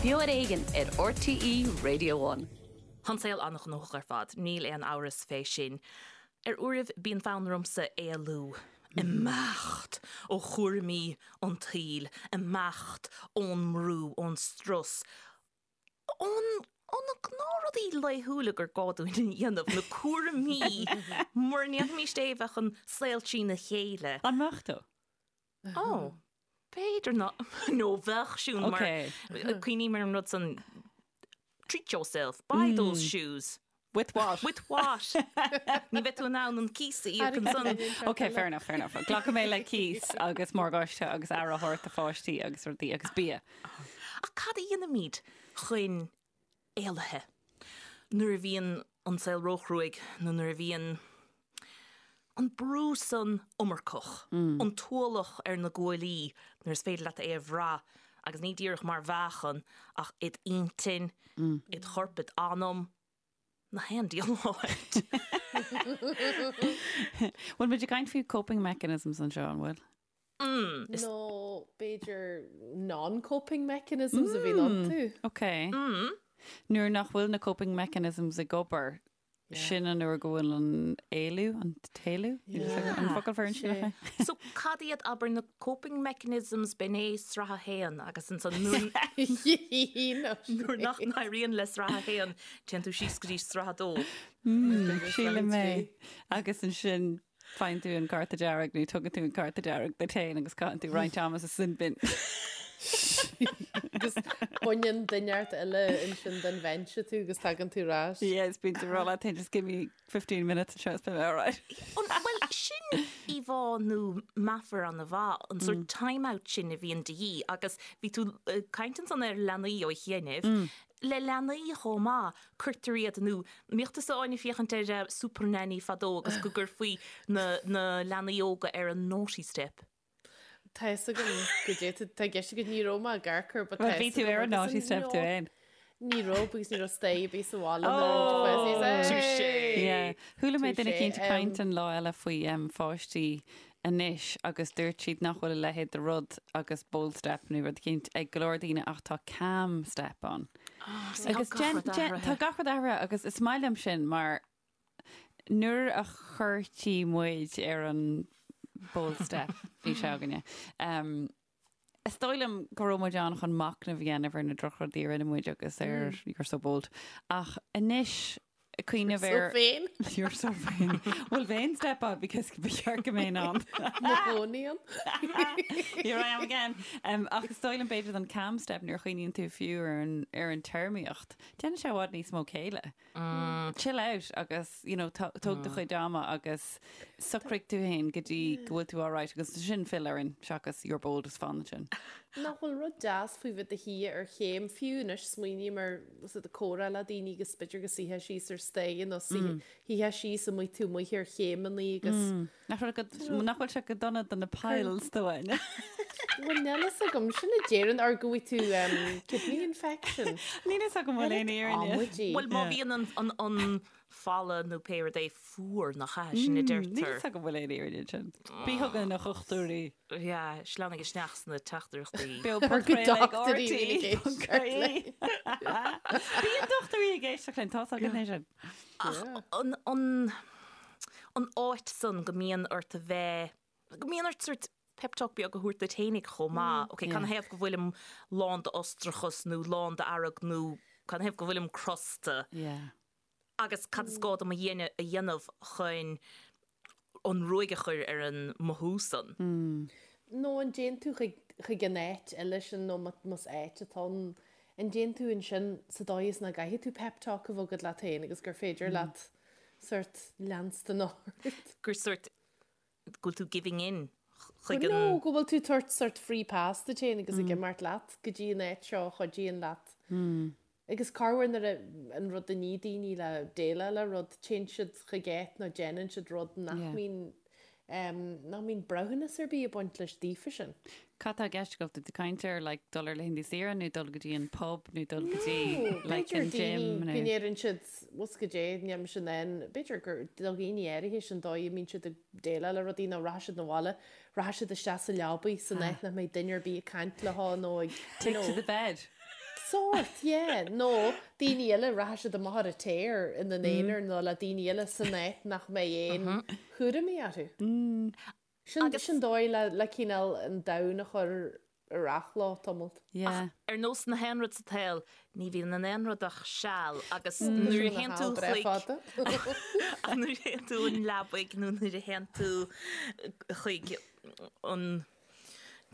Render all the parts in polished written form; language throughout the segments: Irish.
Beo ar Éigean ar RTÉ Radio One. Tá an saol an-ghnóthach ar fad, níl aon amhras fé sin. Ar uairibh bíonn fonn ormsa éalú, imeacht ó chúraimí an tsaoil, imeacht ón mbrú, ón strus, ón, ó na gnáthrudaí laethúla gur gá dúinn a dhéanamh, na cúraimí, mura ndéanfaimis é bheadh an saol trína chéile. An mbeadh tú? Ó, b'fhéidir ná, nó bheadh Siún mar, cuimhním ar an rud san, treat yourself, buy those shoes. With what? With what? Ní bheidh tú in ann an cíos a íoc ansan. Ok, fair enough, fair enough. Glacfaidh mé le cíos agus morgáiste agus aire a thabhairt do pháistí agus rudaí agus bia. Ach cad a dhéanaimid chun éalaithe nuair a bhíonn an saol róchruaidh nó nuair a bhíonn an brú san iomarcach, an t-ualach ar na guaillí nuair is féidir leat é a bhrath agus ní díreach mar mheáchan ach id intinn, id chorp, id anam, na haon diabhal áit. Bhfuil muid ag caint faoi coping mechanisms anseo, an bhfuil? Nó b'fhéidir non-coping mechanisms a bhíonn iontu. Ok. Nuair nach bhfuil na coping mechanisms ag obair, Sin an uair go bhfuil an éalú, an t-éalú? An focal fear sin é? So cad iad abair na coping mechanisms b'in é sraith a haon agus ansan nuair nach n-éiríonn le sraith a haon téann tú síos go dtí sraith a dó. Sílim é. Agus ansin Faigheann tú an cárta dearg nó tugann tú an cárta dearg duit féin agus caitheann tú roinnt ama sa sin bin. Agus baineann duine inteacht eile ansin den bhinse tú agus tagann tú ar ais. Yes, bíonn tú ag rá leat féin just give me 15 minutes anseo is beidh mé alright. Bhuel, sin íomhá nó meafar an-mhaith, an sórt time out sin a bhíonn de dhíth agus bhí tú ag caint ansan ar leanaí ó chianaibh. Le leanaí chomh maith, cuirtear iad, nó mbíodh tusa Áine ag féachaint ar Supernanny fadó agus go gcuirfí na na leanaí óga ar an naughty step. Tá fhios agam goidé tá i gceist agat, ní raibh mé ag amharc air but tá Bhuel, bhí fhios tú agam ar an agus naughty an step tú féin. Ní raibh because ní raibh staighre ar bith sa bhaile nuair a bhí Oh! Touché! Yeah. Chuala mé Touché, duine eicínt ag caint um, an lá eile faoi um, pháistí anois agus dúirt siad nach bhfuil a leithéid de rud agus bold step nó rud eicínt ag go leor daoine ach tá calm step ann. Agus Tá gach rud athraithe. Tá gach rud athraithe agus is maith liom sin mar nuair a chuirtí muid ar an bold step bhí sé againne. Um, is dóigh liom go raibh muid ann chun machnamh a dhéanamh ar na drochrudaí a rinne muid agus ar you're so bold. Ach anois cuimhneamh So ar vain. You're so vain. Bhfuil vain step ann because ba cheart go mbeinn ann. Mo chónaí ann. Here I am again. Um, ach is dóigh liom b'fhéidir don calm step nuair a chuimhníonn tú fiú ar an, ar an téarmaíocht. Déanann sé i bhfad níos mó céille. Chill out agus, you know, tó- tóg do chuid ama agus socraigh tú féin go dtí go bhfuil tú alright agus sin fill orainn seachas you're bold is fan sin. Nach bhfuil rud deas faoi bheith i do shuí ar chéim, fiú anois smaoiním ar is ag comhrá le daoine agus b'fhéidir go suífeá síos ar staighre nó suífeá síos amuigh tú amuigh ar chéimeannaí agus Nach bhfuil go, nach bhfuil sé go dona do na piles do Áine? Bhuel níl fhios agam, sin a deireann or go bhfaighidh tú um, kidney infection. Níl fhios agam bhfuil aon fhírinne. Amaidí. Bhuel má bhíonn an, an, an falla nó pé rud é fuar nach ea, sin a Níl deirtear. fhios agam bhfuil aon fhírinne ansin. Bí chugainn a dhochtúirí. Yeah, sleamhnaigh isteach sna teachtaireachtaí. Beo Or go podchraoladh ag dochtúirí a bhíonn ag éisteacht RT.ie. Bíonn dochtúirí ag éisteacht linn, tá fhios againn é sin. Ach an, an, an áit san go mbíonn ort a bheith, go mbíonn ort sort pep talk beag a thabhairt duit fhéinig chomh maith. Ok, canathaobh go bhfuilim lán d'fhustrachas nó lán d'fhearg nó canathaobh go bhfuilim crosta? Yeah. Agus cad is gá dom a dhéanamh chun an ruaig a chur ar an mothú san? Nó an dtéann tú chuig, chuig an áit eile sin nó más áit atá ann, an dtéann tú ansin sa dóigh is nach gcaithfidh tú pep talk a bheith agat leat féin agus gur féidir leat sort leanstan ort. Gur sort go bhfuil tú giving in chuig an. No, go bhfuil tú tabhairt sort free pass duit féin agus ag imeacht leat go dtí an áit seo a chuidíonn leat. Agus corruair nuair a, an rud a ní daoine le déileáil le rud, téann siad chuig áit nó déanann siad rud nach mbíonn, nach mbíonn breithiúnas ar bith ag baint leis daofa sin. Cad tá i gceist agat? Tá tú ag caint ar like dul ar laethanta saoire nó dul go dtí an pub nó dul go dtí like B'fhéidir an gym daoine nó. go ndeireann siad, bhfuil 's goidé, níl mise in ann, b'fhéidir gur do dhaoine áirithe sin dóigh a mbíonn siad ag déileáil le rudaí nó rachaidh siad 'na bhaile, rachaidh siad isteach sa leabaidh san áit nach mbeidh duine ar bith ag caint leo nó ag, you Take know. to the bed. Sórt, yeah. Nó daoine eile, rachaidh siad amach ar an tear ina n-aonar nó le daoine eile san áit nach mbeidh aon chúraimí orthu. Sin sin dóigh le le cineál an domhan a chur ar athló tamalt. Yeah. Ach ar nós na haon rud sa tsaol, ní bhíonn in aon rud ach seal agus nuair a théann tú chuig ach nuair a théann tú an leabaidh nó nuair a théann tú chuig an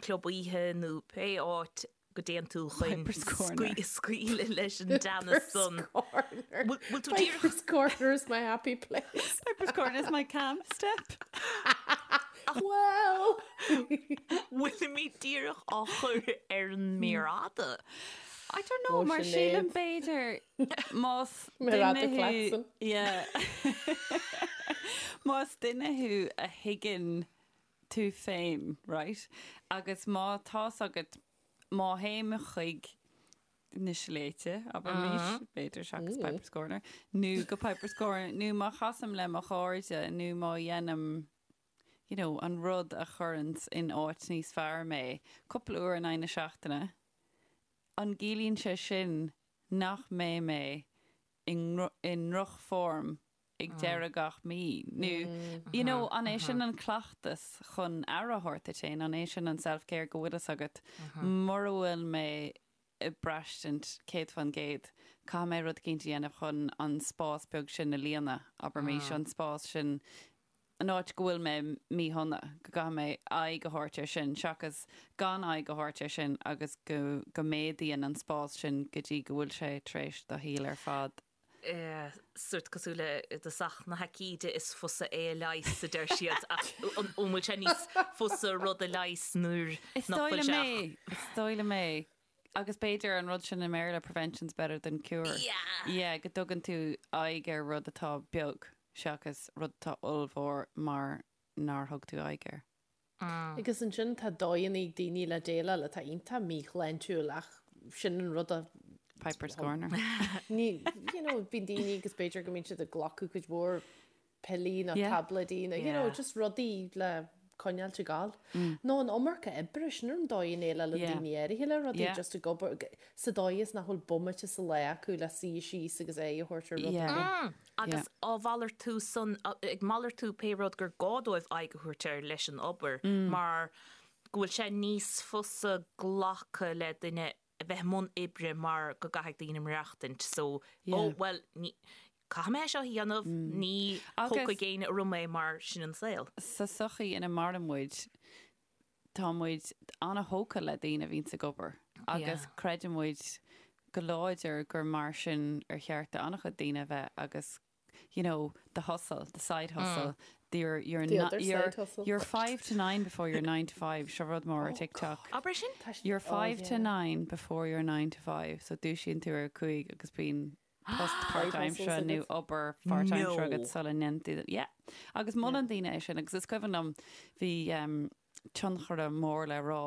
club oíche nó pé áit go dtéann tú chun scaoileadh leis an dteannas san. Bhfuil tú díreach. Piper's Corner is my happy place. Piper's Corner is my calm step. Well! Bhfuilimid díreach á chur ar an méar fhada? I don't know, mar sílim b'fhéidir más duine thú... Yeah. Más duine thú a thuigeann tú féin, right? Agus má tá's agat, má théim chuig na sléibhte, abraimis, b'fhéidir seachas Piper's Corner, nó go Piper's Corner, nó má chasaim le mo chairde, nó má dhéanaim, you know, an rud a chuireanns in áit níos fearr mé, cúpla uair in aghaidh na seachtaine, an gciallaíonn sé sin nach mbeidh mé i ndrochfhoirm ag deireadh gach mí nó you know an é sin an cleachtas chun aire a thabhairt duit féin, an é sin an self-care go bhfuil fhios agat mura bhfuil mé ag braistint 100% caithfidh mé rud eicínt a dhéanamh chun an spás beag sin a líonadh, abraimis, an spás sin, an áit go bhfuil mé míshona, go gcaithfidh mé aghaidh a thabhairt air sin seachas gan aghaidh a thabhairt air sin agus go go méadaíonn an spás sin go dtí go bhfuil sé tar éis do shaol ar fad Sórt cosúil le i dtosach na haicíde is fusa é a leigheas, a deir siad, ach an bhfuil sé níos fusa rud a leigheas nuair Is nach dóigh bhfuil liom sé é, ach. is dóigh liom é. Agus b'fhéidir an rud sin i mBéarla, prevention's better than cure. Yeah. Yeah, go dtugann tú aghaidh ar rud atá beag seachas rud atá ollmhór mar nár thug tú aghaidh air. Agus ansin tá dóigheanna ag daoine le déileáil atá iontach míshláintiúil ach sin an rud a. Piper's Corner. Ní, you know, bíonn daoine agus b'fhéidir go mbíonn siad ag glacadh cuid mhór piollaí nó táibléidí nó, you know, just rudaí le coinneáilt ag gabháil. Nó an iomarca oibre, sin an dóigh a ndéileálann daoine áirithe le rudaí, just ag obair, sa dóigh is nach bhfuil bomaite sa lá acu le suí síos agus aghaidh a thabhairt ar rud ar bith. Agus á mhalartú san, ag malartú pé rud gur gá dóibh aghaidh a thabhairt air leis an obair, mar go bhfuil sé níos fusa glacadh le duine a bheith i mbun oibre mar go gcaithfidh daoine maireachtaint so, ó bhuel, ní, caithfidh mé é seo a dhéanamh, ní thógfaidh éinne orm é mar sin an saol. Sa tsochaí ina maireann muid, tá muid an-thógtha le daoine a bhíonns ag obair agus creideann muid go láidir gur mar sin ar cheart do an-chuid daoine a bheith agus you know, the hustle, the side hustle, the you're, you're, The not, other you're, side hustle. you're five to nine before you're nine to five, seo rud mór ar TikTok. Abair sin? You're five oh, to nine before you're nine to five, so dúisíonn tú ar 5 agus bíonn post páirtaimseartha nó obair pháirtaimseartha agat sula ndéanann tú. Yeah. Agus molann daoine é sin agus is cuimhin liom bhí um, tionchaire mór le rá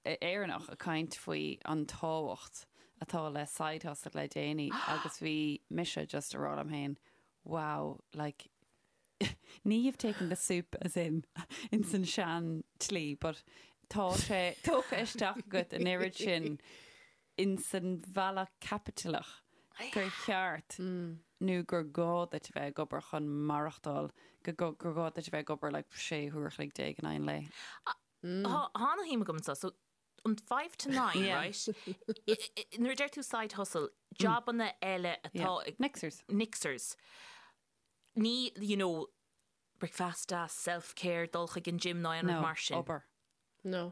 Éireannach ag caint faoi an tábhacht atá le side hustle le déanaí agus bhí mise just ag rá liom féin wow like ní you've taken the soup as in in san sean tslí but tá sé tógtha isteach agat an oiread sin in san bhealach caipitleach gur cheart nó gur gá duit a bheith ag obair chun maireachtáil, go gur gá duit a bheith ag obair like 16 huair a chloig in aghaidh an lae. Tá ana-shuim agam anseo. So, an five to nine, right? Nuair a deir tú side hustle, jabanna eile atá ag. Mixers. Mixers. Ní, you know, bricfeasta, self-care, dul chuig an gym ná aon rud mar sin. No, obair. No.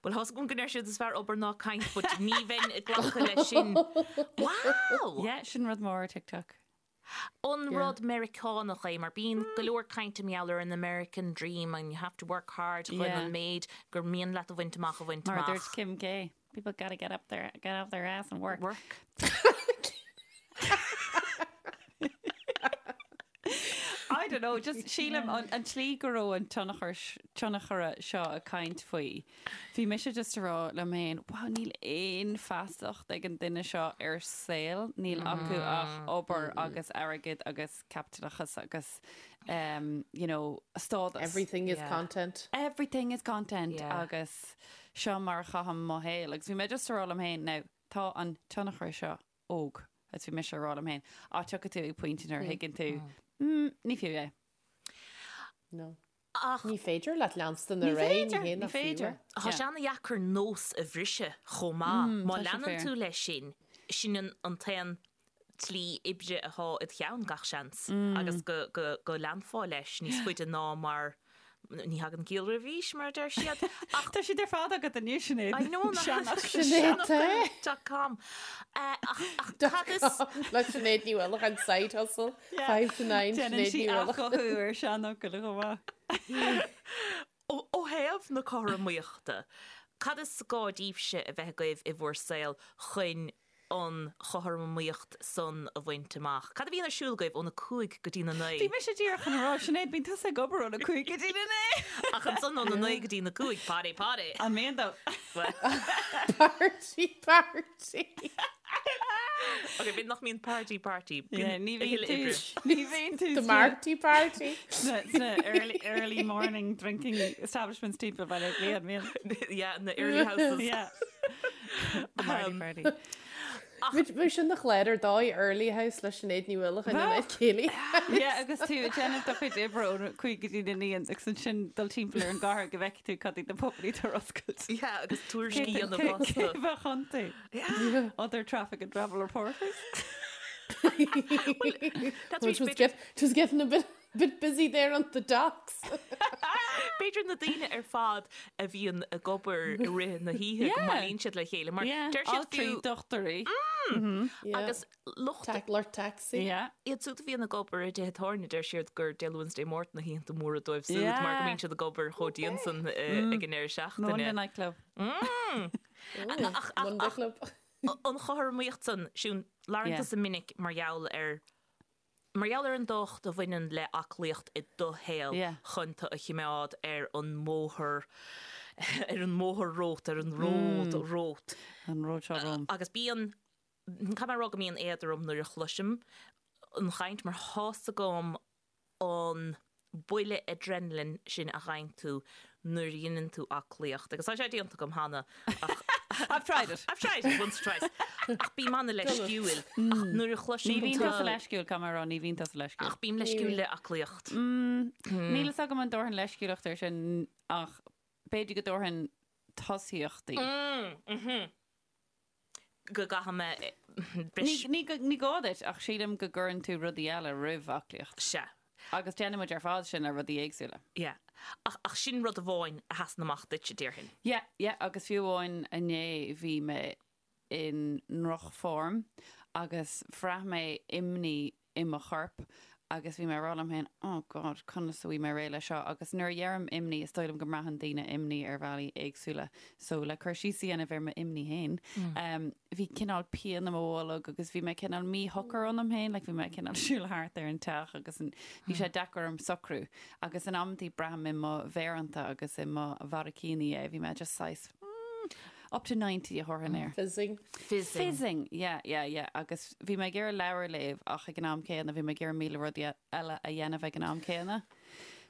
Bhuel, tá's agam go ndeir siad is fearr obair ná caint, but ní bheinn ag glacadh leis sin. Wow! Yeah, sin rud mór ar TikTok. An rud Meiriceánach é, mar bíonn go leor cainte mar gheall ar an American dream and you have to work hard chun an méid gur mian leat a bhaint amach a bhaint Mar a amach. dúirt Kim K, people gotta get up their, get off their ass and work. Work. I don't know, just sílim an, an tslí go raibh an tionchar, tionchaire seo ag caint faoi. Bhí mise just ag rá liom féin, wow, níl aon feasacht ag an duine seo ar saol, níl acu ach obair agus airgead agus caipitleachas agus um, you know, stádas. Everything is content. Everything is content Yeah. agus seo mar a chaithim mo shaol. Agus bhí mé just ag rá liom féin, now, Tá an tionchar seo óg, agus bhí mise ag rá liom féin, á tiocfaidh tú ag pointe nuair a thuigeann tú, mm, ní fiú é. No. Ach. Ní féidir leat leanstan ar aghaidh, ní hé nach fiú é. Tá sé ana-dheacair nós a bhriseadh chomh maith. Má leanann tú leis sin, sin an t-aon tslí oibre atá id cheann gach seans agus go leanfá leis níos faide ná mar ní thagann ciall roimh aois, mar a deir siad. Ach tá siad ar fad agat anois, Sinéad. I know, Sinéad dot com. Ach cad is... Le Sinéad Ní Uallacháin side hustle, 5 to 9, Déanann Sinéad sí Ní Uallacháin. athghuthú ar seanfhocail chomh maith. Ó thaobh na cothromaíochta, cad is gá daoibhse a bheith agaibh i bhur saol chun an chothromaíocht san a bhaint amach? Cad a bhíonn ar siúl agaibh óna 5 go dtí na 9? Bhí mise díreach chun a rá, Sinéad, bíonn tusa ag obair óna 5 go dtí na 9! Ach ansan óna 9 go dtí na 5, party party! An mbíonn dó? Party party! Ok, b'fhéidir nach mbíonn party party. Yeah, ní bhíonn tú, ní bhíonn tú The Marty party. Sna early, early morning drinking establishments timpeall Bhaile Átha Cliath, an mbíonn? Yeah, na early houses. Yeah. The Marty party. Bheadh sin ina chlár ar dóigh Early House le Sinéad Ní Uallacháin in áit Céilí House. Yeah, agus tú ag déanamh do chuid oibre ó 5 go dtí na 9 agus ansin dul timpeall ar an gcathair go bhfeicfidh tú cad iad na pubannaí atá ar oscailt. Yeah, agus tuairiscí a dhéanamh fosta. Cé bheadh iontu? Yeah. Other traffic and travel reporters. That's Which was, get, was getting a bit Bit busy there on the docks. B'fhéidir na daoine ar fad a bhíonn ag obair i rith na hoíche go mbailíonn siad le chéile mar deir siad fiú dochtúirí agus lucht lucht taxi. Iad siúd a bhíonn ag obair i dtithe tábhairne deir siad gur Dé Luain 's Dé Máirt na hoícheanta móra dóibh siúd mar go mbíonn siad ag obair chomh dian san ag an deireadh seachtaine. Monday night club. Monday club. An chothromaíocht san, Siún, labhrann tusa minic mar gheall ar Mar gheall ar an dtábhacht a bhaineann le aclaíocht i do shaol chun tú a chimeád ar an mbóthar, ar an mbóthar romhat, ar an ród romhat. An ród seo romham. Agus bíonn, caithfidh mé a rá go mbíonn éad orm nuair a chloisim an chaint mar tá's agam an buille adrenaline sin a fhaigheann tú nuair a dheineann tú aclaíocht, agus tá sé déanta agam cheana ach I've tried it. I've tried it once or twice. Ach bím an-leisciúil. Ach nuair a chloisim Ní bhíonn tusa leisciúil, caithfidh mé a rá, ní bhíonn tusa leisciúil. Ach bím leisciúil le aclaíocht. Níl fhios agam an dtabharfainn leisciúlacht air sin ach b'fhéidir go dtabharfainn tosaíochtaí. Go gcaithfidh mé bris. Ní gá duit, ach sílim go gcuireann tú rudaí eile roimh aclaíocht. Sea. Agus déanann muid ar fad sin le rudaí éagsúla. Yeah. Ach, ach sin rud amháin a sheasann amach duitse, déarfainn. Yeah, yeah, agus fiú amháin inné bhí mé i ndrochfhorm agus bhraith mé imní i mo chorp agus bhí mé ag rá liom féin, oh God, conas a bhfuil mé réidh leis seo? Agus nuair a dheirim imní, is dóigh liom go mbraitheann daoine imní ar bhealaí éagsúla. So le cur síos a dhéanamh ar m'imní féin, bhí cineál pian i mo bholg agus bhí mé cineál míshocair ionam féin, like bhí mé cineál siúl thart ar an teach agus bhí sé deacair orm socrú. Agus in amantaí braithim i mo mhéireanta agus i mo bharraicíní é, bhí mé just saghas, mm, Up to 90 a thabharfainn air. Fizzing. Fizzing. Fizzing, yeah, yeah, yeah. Agus bhí mé ag iarraidh leabhar a léamh ach ag an am céanna bhí mé ag iarraidh 1,000 rudaí eile a dhéanamh ag an am céanna.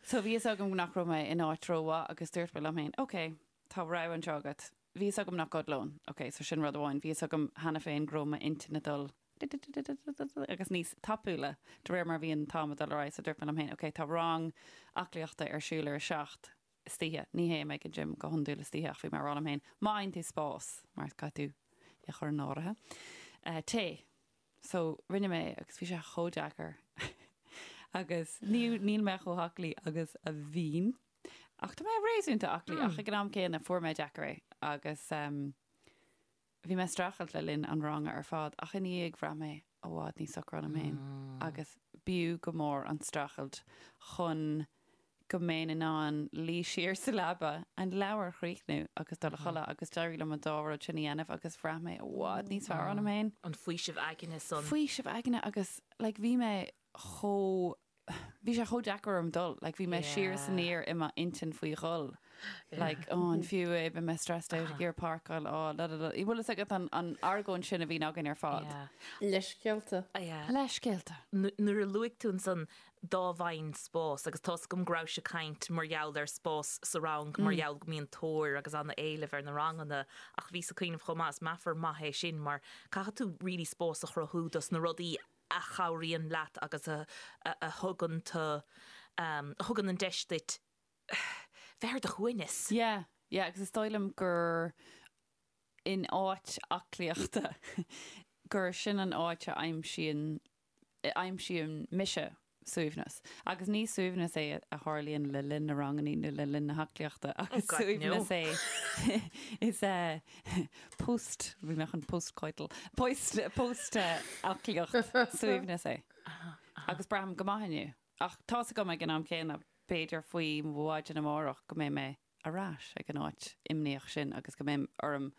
So bhí fhios agam nach raibh mé in áit rómhaith agus dúirt mé liom féin, ok, tá rogha anseo agat. Bhí fhios agam nach gcodlóinn, ok, so sin rud amháin. Bhí fhios agam cheana féin go raibh m'intinn ag dul agus níos tapúla de réir mar a bhí an t-am ag dul ar aghaidh so dúirt mé liom féin, ok, tá rang aclaíochta ar siúl ar a 7, istoíche. Ní théim ag an gym go hiondúil istoíche ach bhí mé ag rá liom féin, má fhaigheann tú spás, mar caithfidh tú é a chur in áirithe, téigh. So, rinne mé agus bhí sé chomh deacair agus ní, níl mé chomh haclaí agus a bhínn ach tá mé réasúnta aclaí ach ag an am céanna fuair mé deacair é agus bhí mé ag streachailt le linn an ranga ar fad ach ina dhiaidh bhraith mé i bhfad níos socra ionam féin agus b'fhiú go mór an streachailt chun go mbeinn in ann luí siar sa leaba, an leabhar a chríochnú agus dul a chodladh agus d'éirigh liom an dá rud sin a dhéanamh agus bhraith mé i bhfad níos fearr ionam féin. An faoiseamh aigne san. Faoiseamh aigne agus like bhí mé chomh, bhí sé chomh deacair orm dul, like bhí mé siar is aniar i m'intinn faoi dhul. Like, oh, an fiú é, beidh mé stressed out ag iarraidh páirceáil, oh, la la la. Bhfuil fhios agat an, an argóint sin a bhíonn againn ar fad? Yeah. Leithscéalta. Yeah. Leithscéalta. Nuair a luaigh tú ansan dá bhfaighinn spás, agus tá's agam go rabhais ag caint mar gheall ar spás sa rang, mar gheall go mbíonn tóir agus an-éileamh ar na ranganna, ach bhíos ag cuimhneamh chomh maith, is meafar maith é sin mar caithfidh tú really spás a chruthú dos na rudaí a chabhraíonn leat agus a a thugann tu, a thugann an deis duit bheith ar do shuaimhneas. Yeah, yeah, agus is dóigh liom gur in áit aclaíochta gur sin an áit a aimsíonn, a aimsíonn mise suaimhneas. Agus ní suaimhneas é a tharlaíonn le linn na rangannaí nó le linn na haclaíochta ach is Oh God, no. suaimhneas é is é post, bhí mé chun post-coital, post, post aclaíocht suaimhneas é. Agus braithim go maith inniu. Ach tá's agam ag an am céanna, b'fhéidir faoi mhaidin amárach go mbeidh mé ar ais ag an áit imníoch sin agus go mbeidh orm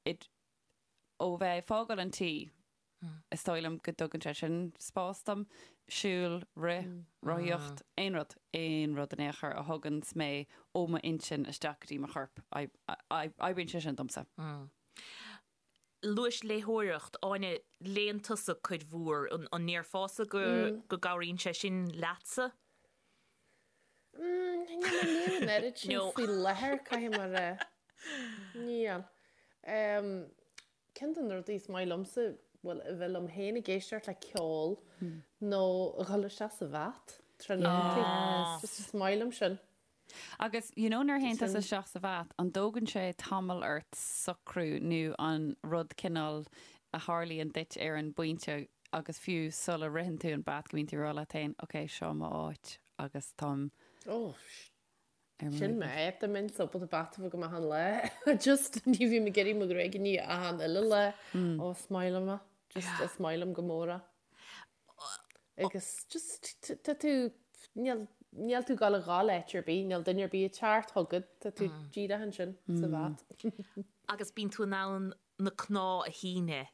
ó bheith ag fágáil an tí, is dóigh liom go dtugann sé sin spás dom, siúl, rith, rothaíocht, aon rud, aon rud in aon chor a thuganns mé ó m'intinn isteach go dtí mo chorp, oibríonn sé sin domsa. Luais léitheoireacht, Áine, léann tusa cuid mhór, an ndéarfása go go gcabhraíonn sé sin leatsa? Níl mé ag léamh an oiread sin faoi láthair, caithfidh mé a rá. Níl. Ceann de na rudaí is maith liomsa, bhuel, a bheith liom féin ag éisteacht le ceol nó a dhul isteach sa bhath tráthnóntaí. Just is maith liom sin. Agus you know nuair a théann tusa isteach sa bhath, an dtógann sé tamall ort socrú nó an rud cineál a tharlaíonn duit ar an bpointe agus fiú sula ritheann tú an bath go mbíonn tú ag rá leat féin ok seo mo áit agus táim Oh, ar mo sin réidh. m'áit, dá mbeinn ábalta bath a bheith agam achan lá. Just ní bhím ag iarraidh mo ghruaig a ní achan uile lá. Oh, is maith liom é. Just is maith liom go mór é. Agus just tá tú, níl, níl tú ag dul a dhul áit ar bith, níl duine ar bith ag teacht chugat, tá tú díreach ansin sa bhath. Agus bíonn tú in ann na cnámha a shíneadh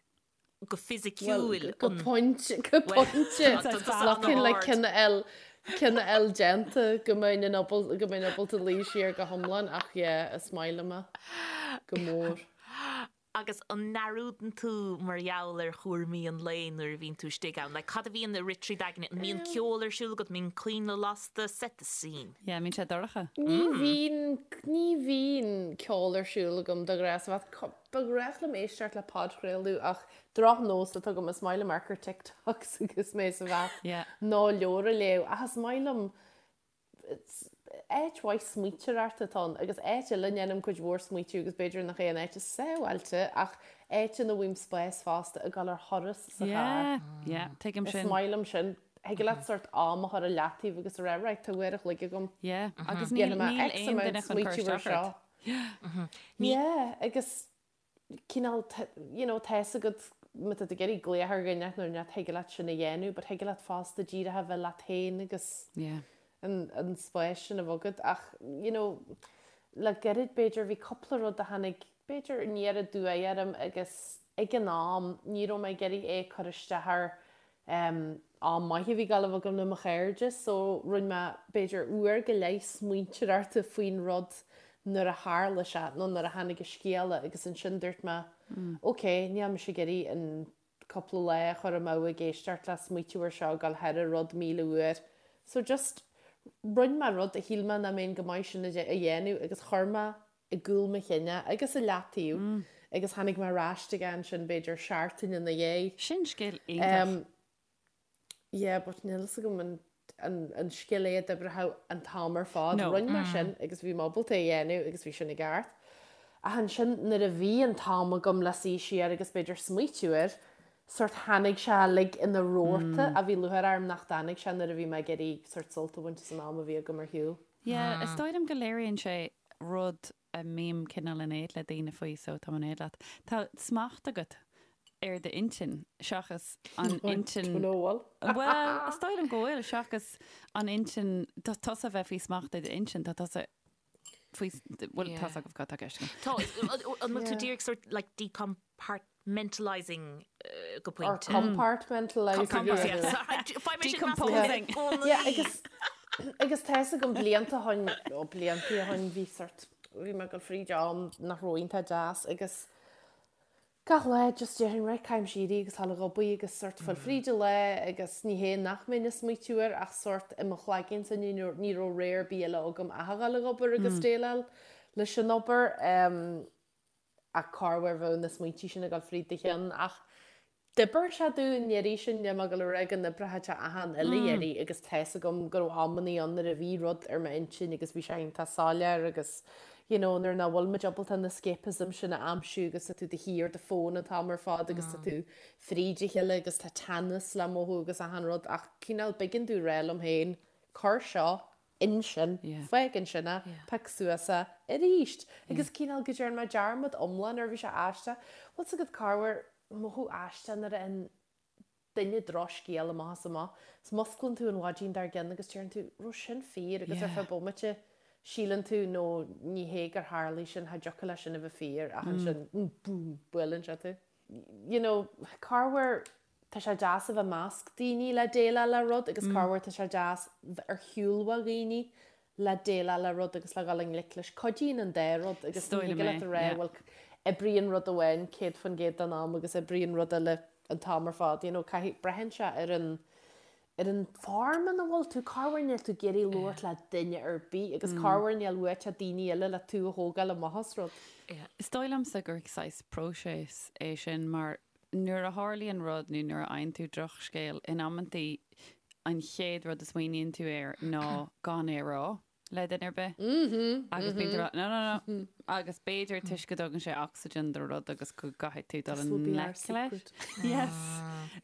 go fisiciúil. Well, go pointe, go pointe. Looking like ceann a fháil, ceann a fháil déanta go mbeinn in ábal, go mbeinn ábalta luí siar go hiomlán ach yeah, is maith liom é go mór. Agus an ndearúdann tú mar gheall ar chúraimí an lae nuair a bhíonn tú istigh ann? Like, cad a bhíonn ag rith trí d'aigne? An mbíonn ceol ar siúl agat? An mbíonn coinnle lasta? Set the scene. Yeah, an mbíonn sé dorcha? Ní bhíonn, ní bhíonn ceol ar siúl agam de ghnáth sa bhath. Ba ghnách liom éisteacht le podchraoladh ach drochnós atá agam, is maith liom amharc ar TikToks agus mé sa bhath Yeah. nó leabhar a léamh ach is maith liom Áit mhaith smaointeoireachta atá ann agus áit eile a ndéanaim cuid mhór smaoitiú agus b'fhéidir nach é an áit is sábháilte ach áit ina bhfaighim spás fosta ag dul ar thuras sa charr. Yeah, yeah, tuigim Is sin. maith liom sin. Thig leat sort am a chur i leataobh agus a rá right tá uair a chloig agam. Yeah, agus níl, Dhéanfaidh mé níl X aon amount duine chun cur smaoitiú ar isteach ort. seo. Yeah, agus cineál, you know, tá fhios agat má tá tú ag iarraidh glaoch ar dhuine nó ní thig leat sin a dhéanamh, but thig leat fosta díreach a bheith leat féin agus Yeah. an, an spás sin a bheith agat. Ach, you know, le gairid b'fhéidir bhí cúpla rud a tháinig b'fhéidir aniar aduaidh orm agus ag an am ní raibh mé ag iarraidh é a chur isteach ar Am maith a bhí ag gabháil a bheith agam le mo chairde so rinne mé b'fhéidir uair go leith smaointeoireachta faoin rud nuair a tharla sé nó nuair a tháinig an scéala agus ansin dúirt mé ok níl mise ag iarraidh an cúpla lá a chur amú ag éisteacht le smaoitiú ar seo ag dul thar an rud 1000 uair so just rinne mé rud a shíl mé nach mbeinn go maith sin a dhéanamh agus chuir mé i gcúl mo chinn é agus i leataobh agus tháinig mé ar ais aige ansin b'fhéidir seachtain ina dhiaidh. Sin scil iontach. Yeah, but níl fhios agam an an an scil é a d'oibreodh an t-am ar fad. No. Rinne mé sin agus bhí mé ábalta é a dhéanamh agus bhí sin i gceart. Ach ansin nuair a bhí an t-am agam le suí siar agus b'fhéidir smaoitiú air, sort tháinig sé uilig ina rabharta a bhí lúcháir orm nach dtáinig sé nuair a bhí mé ag iarraidh sort sult a bhaint as an am a bhí agam ar shiúl. Yeah, is dóigh liom go léiríonn sé rud a mbím cineál in éad le daoine faoi so táim in éad leat. Tá smacht agat ar d'intinn seachas an intinn. Don't know bhfuil. Bhuel, is dóigh liom go bhfuil, seachas an intinn, tá tusa a bheith faoi smacht ag d'intinn, tá tusa faoi, bhuel, tá fhios agaibh cad tá i gceist agam. Tá, an bhfuil tú díreach sort like decompartmentalising go Or pointe? compartmentalising. Compartmentalising. Decomposing. Yeah, agus. Agus tá fhios agam blianta ó shin, ó blianta ó shin bhí sort, bhí mé ag dul fríd am nach raibh iontach deas agus gach lá just déarfainn right caithfimse éirí agus dul ag obair agus sort fáil fríd an lá agus ní hé nach mbeinn ag smaoitiú air ach sort i mo chloigeannsa ní ní raibh rogha ar bith eile agam ach a dhul ag obair agus déileáil leis an obair. Ach corruair bheadh na smaointí sin ag dul fríd do cheann ach d'oibir sé domh an iarraidh sin níl mé ag dul a rá go n-oibreoidh sé achan uile iarraidh agus tá fhios agam go raibh amannaí ann nuair a bhí rud ar m'intinn agus bhí sé iontach soiléir agus you know nuair nach bhfuil muid ábalta an escapism sin a aimsiú agus tá tú de shíor ar do fón an t-am ar fad agus tá tú fríd a chéile agus tá teannas le mothú agus achan rud ach cineál b'éigean domh rá liom féin cuir seo ansin, fág ansin é, pioc suas é arís. Agus cineál go dtearn mé dearmad iomlán air, bhí sé aisteach. Bhfuil 's agat corruair mothú aisteach nuair a fhaigheann duine drochscéal amach is amach. 's musclaíonn tú an mhaidin dár gcionn agus deireann tú, raibh sin fíor agus ar feadh bomaite síleann tú no ní hé gur tharlaigh sin, cha dtiocfadh leis sin a bheith fíor ach ansin boom, buaileann sé tú. You know, corruair tá sé deas a bheith i measc daoine le déileáil le rud agus corruair tá sé deas bheith ar shiúl ó dhaoine le déileáil le rud agus le dhul i ngleic leis. Cuidíonn an dá rud agus ní thig leat a rá bhuel oibríonn rud amháin 100% den am agus oibríonn rud eile an t-am ar fad. You know, caithfidh, braitheann sé ar an ar an form ina bhfuil tú, corruair níl tú ag iarraidh labhairt le duine ar bith agus corruair níl uait ach daoine eile le tú a thógáil amach as rud. Is dóigh liomsa gur saghas próiseas é sin mar nuair a tharlaíonn rud nó nuair a fhaigheann tú drochscéal, in amantaí an chéad rud a smaoiníonn tú air ná gan é a rá le duine ar bith. Agus bíonn tú ag rá no, no, no. Agus b'fhéidir toisc go dtugann sé ocsaigin do rud agus go gcaithfidh tú dul i ngleic leis. Yes.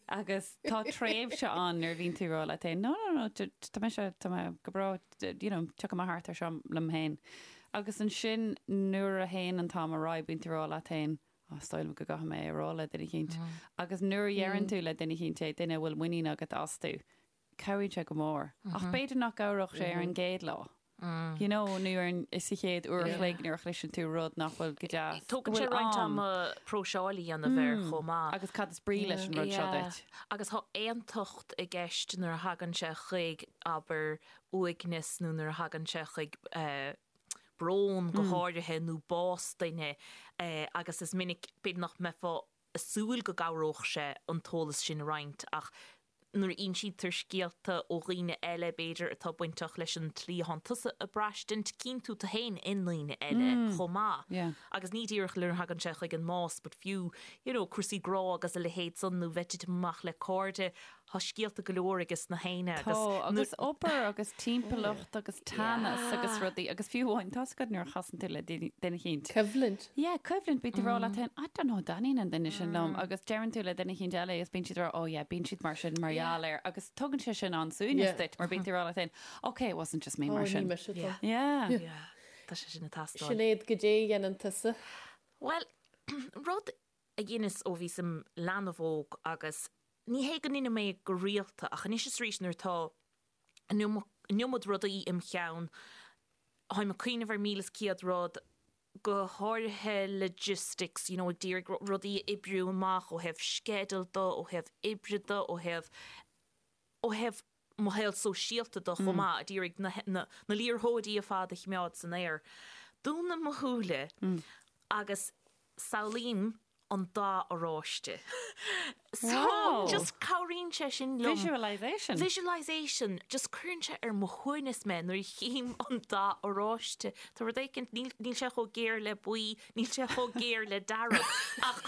Agus tá tréimhse ann nuair a bhíonn tú ag rá leat féin no, no, no, tá mise, tá mé go breá, you know, tiocfaidh mé thart ar seo liom féin. Agus ansin nuair a théann an t-am ar aghaidh bíonn tú ag rá leat féin, Á, is dóigh liom go gcaithfidh mé é a rá le duine eicínt. Agus nuair a dheireann tú le duine eicínt é, duine a bhfuil muinín agat astu, cabhraíonn sé go mór. Ach b'fhéidir nach gcabhródh sé ar an gcéad lá. You know, nó ar an, sa chéad uair a chloig nuair a chloiseann tú rud nach bhfuil go deas. Go Tógann sé bhfuil roinnt am. ama próiseáil a dhéanamh air chomh maith. Agus cad is brí leis an rud seo duit? Agus tá aontacht i gceist nuair a thagann sé chuig, abair, uaigneas nó nuair a thagann sé chuig eh, brón go háirithe nó bás duine agus is minic, b'fhéidir nach mbeifeá ag súil go gcabhródh sé an t-eolas sin a roinnt ach nuair a insítear scéalta ó dhaoine eile, b'fhéidir, atá bainteach leis an tslí atánn tusa ag braistint, cíonn tú tú féin i ndaoine eile chomh maith. Agus ní díreach nuair a thagann sé chuig an mbás but fiú, you know, cúrsaí grá agus a leithéid san nó bheith ag titim amach le cairde, Tá scéalta go leor ages na héinne agus. Tá, agus obair agus timpeallacht agus teannas agus rudaí agus fiú amháin, tá's agat nuair a chasann tú le duine eicínt. Coimhlint. Yeah, coimhlint, bíonn tú ag rá leat féin, I don't know, an dtaitníonn an duine sin liom agus deireann tú le duine eicínt eile agus bíonn siad ag rá, oh yeah, bíonn siad mar sin mar gheall air agus tugann sé sin an-suaimhneas duit mar bíonn tú ag rá leat féin, okay, it wasn't just me mar sin. Oh, ní mise atá. Yeah. Yeah. Tá sé sin ag teastáil. Sinéad, goidé a dhéanann tusa? Bhuel, rud a dheineas ó bhíos im leanbh óg agus ní hé go ndeinim é go rialta ach anois is arís nuair atá an iomad rudaí im cheann, táim ag cuimhneamh ar 1,100 rud, go háirithe logistics, you know, ag d'iarraidh rudaí a oibriú amach ó thaobh sceideal de, ó thaobh oibre de, ó thaobh, ó thaobh mo shaol sóisialta de chomh maith, ag iarraidh na, na, na liathróidí ar fad a choimeád san aer. Dúnaim mo shúile agus samhlaím an dath oráiste. So, Wow. just cabhraíonn sé sin liom. Visualisation. Visualisation. Just cuireann sé ar mo shuaimhneas mé nuair a chím an dath oráiste. Tá rud éicint, níl, níl sé chomh géar le buí, níl sé chomh géar le dearg, ach.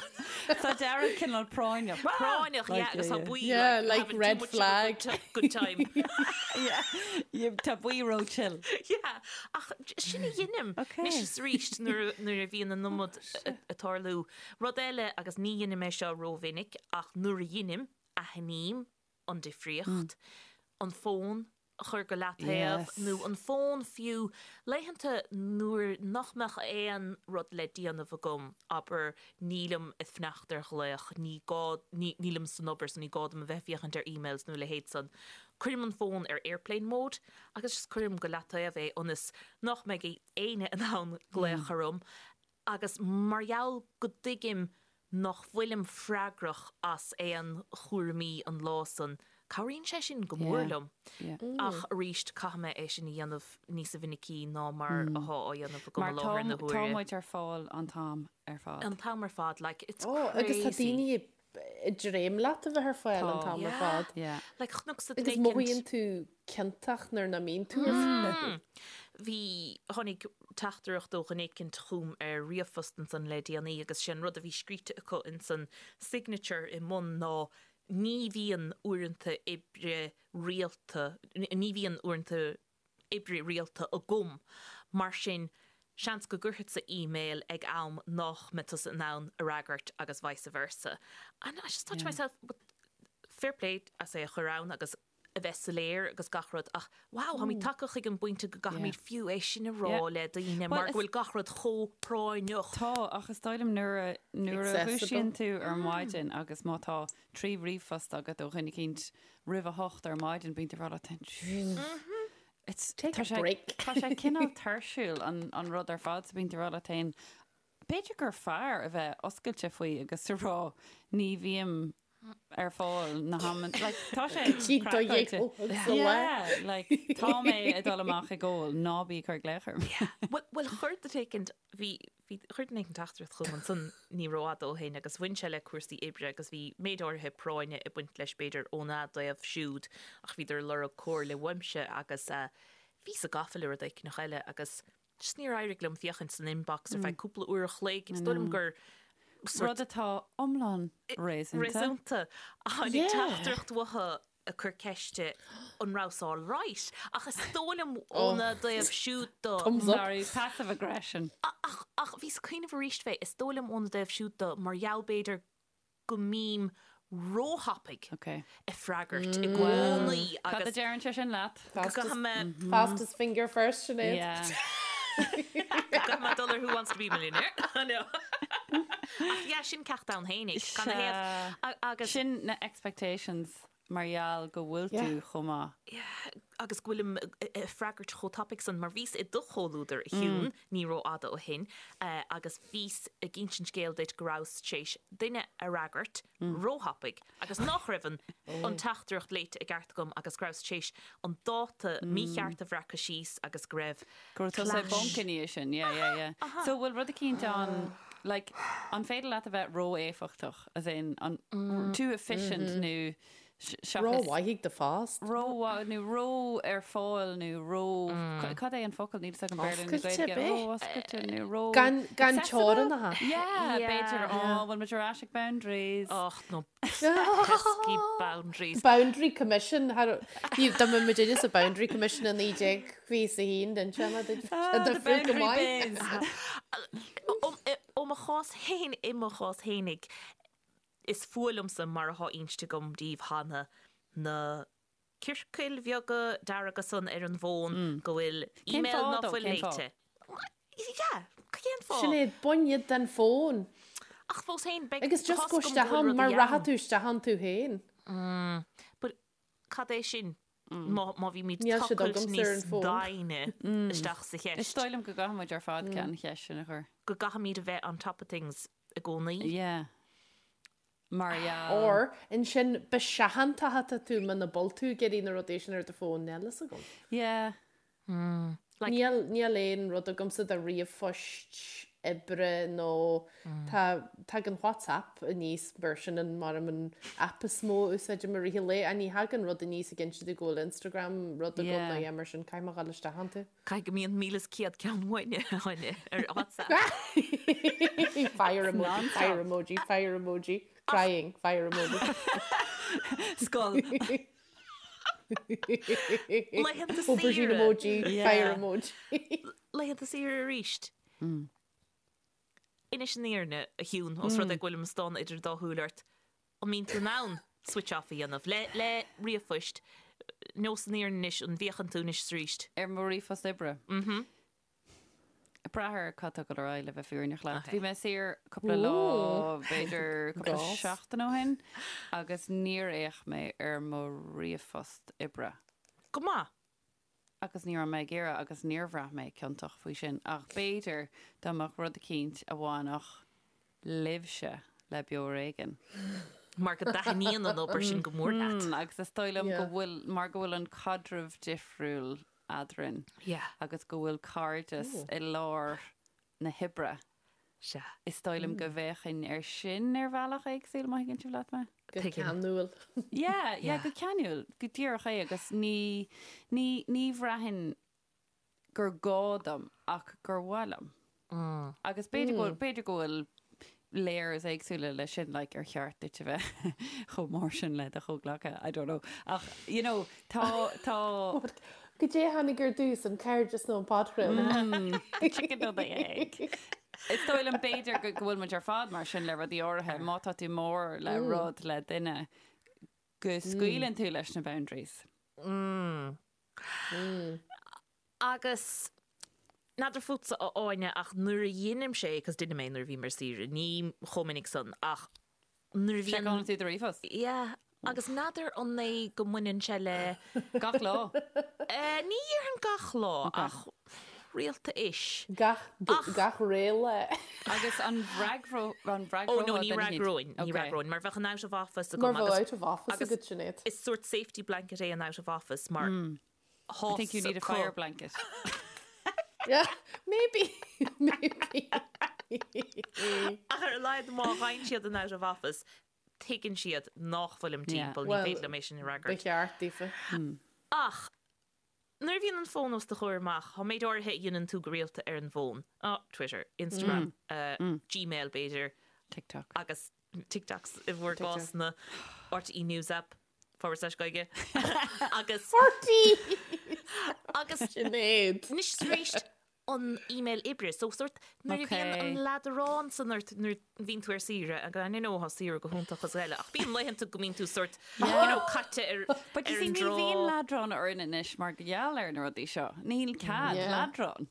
Tá dearg cineál práinneach. Práinneach, yeah, agus tá buí Yeah, like, like having too red much of a flag. good ti- good time. Yeah, yeah, tá buí ró chill. Yeah, ach sin a dheinim. Okay. Anois is arís nuair a- nuair a bhíonn an iomad ag tarlú. Rud eile, agus ní dheinim é seo rómhinic, ach nuair a dheinim, aithním an difríocht, an fón a chur go leataobh, nó an fón fiú, laethanta nuair nach mbeadh aon rud le déanamh agam, abair, nílim ag fanacht ar ghlaoch, ní gá, nílim san obair so ní gá dom a bheith ag féachaint ar emails nó a leithéid san, cuirim an fón ar airplane mode agus just cuirim go leataobh é ionas nach mbeidh éinne in ann glaoch orm agus mar gheall go dtuigim nach bhfuilim freagrach as aon chúraimí an lá san. Cabhraíonn sé sin go mór liom. Ach arís, caithfidh mé é sin a dhéanamh níosa mhinicí ná mar athá á dhéanamh agam i láthair na huaire. Mar tá muid ar fáil an t-am ar fad. An t-am ar fad, like, it's crazy. Agus tá daoine ag dréim leat a bheith ar fáil an t-am ar fad. Yeah. Like, chonacsa duine Agus éicint. mothaíonn tú ciontach nuair nach mbíonn tú ar fáil. Bhí, tháinig teachtaireacht ó dhuine éicint chugam ar ríomhphost ansan le déanaí agus sé an rud a bhí scríte acu insan signature i mbun ná Ní bhíonn uaireanta oibre rialta, ní bhíonn uaireanta oibre rialta agam, mar sin seans go gcuirfeadsa email ag am nách mbeidh tusa in ann a fhreagairt agus vice versa. And I just thought to myself, but fair play as é a chur ann agus a bheith soiléir agus gach rud ach wow, táimid tagtha chuig an bpointe go gcaithfimid fiú é sin a rá le daoine mar go bhfuil gach rud chomh práinneach. Tá, ach is dóigh liom nuair a nuair a dhúisíonn tú ar maidin agus má tá 3 ríomhphost agat ó dhuine eicínt roimh a hocht ar maidin, bíonn tú ag rá leat féin, It's Take a break. Tá sé cineál tuirsiúil an rud ar fad so bíonn tú ag rá leat féin, b'fhéidir gur fearr a bheith oscailte faoi agus a rá ní bhím ar fáil na hamanna like tá sé craiceáilte. Yeah, like tá mé ag dul amach ag ól, ná bí ag cur glaoch orm. Bhuel, bhuel chuir duine éicint, bhí, bhí, chuir duine éicint teachtaireacht chugam ansan ní rófhada ó shin agus bhain sé le cúrsaí oibre agus bhí méid áirithe práinne ag baint leis b'fhéidir óna dtaobh siúd ach bhíodar ag lorg comhairle uaimse agus eh bhíos-sa gafa le rud éicneach eile agus Just níor éirigh liom féachaint san inbox ar feadh cúpla uair a chloig. Is dóigh liom gur sort. Rud atá iomlán réasúnta. Réasúnta. Tháinig teachtaireacht uathu ag cur ceiste an rabhas all right. Ach is dóigh liom óna dtaobh siúd do. Thumbs up. Sorry, passive aggression. Ach, ach bhíos ag cuimhneamh arís fé, is dóigh liom óna dtaobh siúd do, mar gheall b'fhéidir go mbím róthapaidh ag freagairt i gcónaí agus. Cad a deireann sé sin leat? Go gcaithfidh mé. Fastest finger first, Sinéad. Yeah. Go gcaithfidh mé dul ar Who Wants to be a Millionaire. No. Ach yeah, sin ceacht ann fhéinig. Gan a thaobh. Agus. Sin na expectations mar gheall go bhfuil tú chomh maith. Yeah, agus go bhfuilim ag freagairt chomh tapaidh san, mar bhíos i do chomhluadar, a Shiún, ní rófhada ó shin, agus bhíos ag insint scéil duit go rabhas tar éis duine a fhreagairt róthapaidh agus nach raibh an an teachtaireacht léite i gceart agam agus go rabhas tar éis an dáta mícheart a bhreacadh síos agus go raibh Go raibh tusa i bponc ina dhiaidh sin, yeah, yeah, yeah. So bhfuil rud eicínt ann, like, an féidir leat a bheith ró-éifeachtach, as in, an, too efficient nó seachas. Ró-mhaith ag do phost. Ró-mhaith nó ró ar fáil nó ró, cad é an focal, níl fhios agam Béarla nó Oscailte, Gaeilge, b'é? ró-oscailte nó ró. Gan, gan teorainneacha. Yeah, b'fhéidir, oh, bhfuil muid ar ais ag boundaries. Och, nó pesky boundaries. Boundary Commission, dá mbeadh muid sa Boundary Commission i 1921 den tseanad Ah, the boundary biz. Ó mo chás féin, i mo chás fhéinig, is fuath liomsa mar atá inste agam daoibh cheana na ciorcail bheaga dearga san ar an bhfón go bhfuil email ná fuil léite. Yeah, cén fáth? Sinéad, bain iad den fón. Ach fós féin, beidh Agus just gabh isteach ann, mar rachaidh tú isteach ann tú féin. But cad é sin má má bhímid tochailt níos doimhne isteach sa cheist? Is dóigh liom go gcaithfidh muid ar fad an cheist sin a chur. Go gcaithfimid a bheith on top of things i gcónaí. Yeah. Mar gheall. Or, ansin, ba seachantach atá tú muna bhfuil tú ag iarraidh na rudaí sin ar do fón, níl fhios agam. Yeah. Like. Níl, níl aon rud agamsa de ríomhphoist oibre nó tá, tagann WhatsApp aníos mar sin an, mar an app is mó a úsáidim i rith an lae, ach ní thagann rud aníos ag inse domh go bhfuil Instagram rud agam Yeah. nó yeah mar sin, caithfidh mé dhul isteach iontu. Caithfidh go mbíonn 1,100 ceann uainne Áine ar WhatsApp. Fire emoji, fire emoji, fire emoji, crying, fire emoji. Skull. Laethanta Aubergine saoire. emoji, fire Yeah. emoji. Laethanta saoire arís. Inis an fhírinne, a Shiún, os rud é go bhfuilim ag stánadh idir dá shúil ort, an mbíonn tú in ann switch off a dhéanamh le le ríomhphoist, nós an fhírinne anois, an bhféachann tú anois is arís? Ar mo ríomhphost oibre. Mhm. Ag brath ar cad tá ag dul ar aghaidh le bheith fírinneach leat. Ok. Bhí mé saor cúpla lá, b'fhéidir cúpla Gás. seachtain ó shin, agus níor fhéach mé ar mo ríomhphost oibre. Go maith. Agus ní raibh mé ag iarraidh agus níor bhraith mé ciontach faoi sin. Ach b'fhéidir dá mbeadh rud eicínt a bhainfeadh libhse le Beo Ar Éigean. Mar go dtaitníonn an obair sin go mór leat. Agus is dóigh liom go bhfuil, mar go bhfuil an caidreamh difriúil eadrainn. Agus go bhfuil cairdeas i lár na hoibre. Sea. Is dóigh liom go bhféachfainn air sin ar bhealach éagsúil, má thuigeann sibh leat mé. Go ceanúil. Yeah, yeah, go ceanúil, go díreach é agus ní, ní, ní bhraithfinn gur gá dom ach gur mhaith liom. Agus b'fhéidir go bhfuil, b'fhéidir go bhfuil layers éagsúla leis sin, like ar cheart duit a bheith chomh mór sin le do chomhghleacaithe, I don't know. Ach, you know, tá, tá. Goidé a tháinig ar dtús, an cairdeas nó an podchraoladh? The chicken or the egg. Is dóigh liom b'fhéidir go go bhfuil muid ar fad mar sin le rudaí áirithe, má tá tú mór le rud le duine, go scaoileann tú leis na boundaries. Agus n'fheadar fútsa a Áine ach nuair a dheinimse é, 'cause deinim é nuair a bhím ar saoire, ní chomh minic san ach nuair a bhíonn. Seiceálann tú do ríomhphost? Yeah, agus n'fheadar an é go mbaineann sé le. Gach lá? Ní dhéarfainn gach lá ach rialta-ish. Gach, gach ré lá. Agus an bhfreagrófá Ó no, ní fhreagróinn, ní fhreagróinn, mar bheadh an out of office agam Mar bheadh out of office agat, Sinéad. Is sort safety blanket é an out of office mar I think you need a fire blanket. Yeah, maybe, maybe. Ach ar a laghad má fhaigheann siad an out of office, tuigeann siad nach bhfuilim timpeall, ní féidir liom é sin a Ba fhreagairt. cheart daofa. Ach nuair a bhíonn an fón os do chomhair amach, tá méid áirithe a dhéanann tú go rialta ar an bhfón, Twitter, Instagram, Gmail b'fhéidir, TikTok. agus TikToks i bhur gcás na RTÉ News App forward slash Gaeilge agus RTÉ! agus Sinéad. Anois tar éis an email oibre so sort nuair a bhíonn an leadrán san ort nuair a bhíonn tú ar saoire agus I know tá saoire go hiontach is eile ach bíonn laethanta go mbíonn tú sort you know caite ar But you see an ní dtrá. bhíonn leadrán orainn anois mar gheall ar na rudaí seo. Níl cead leadrán.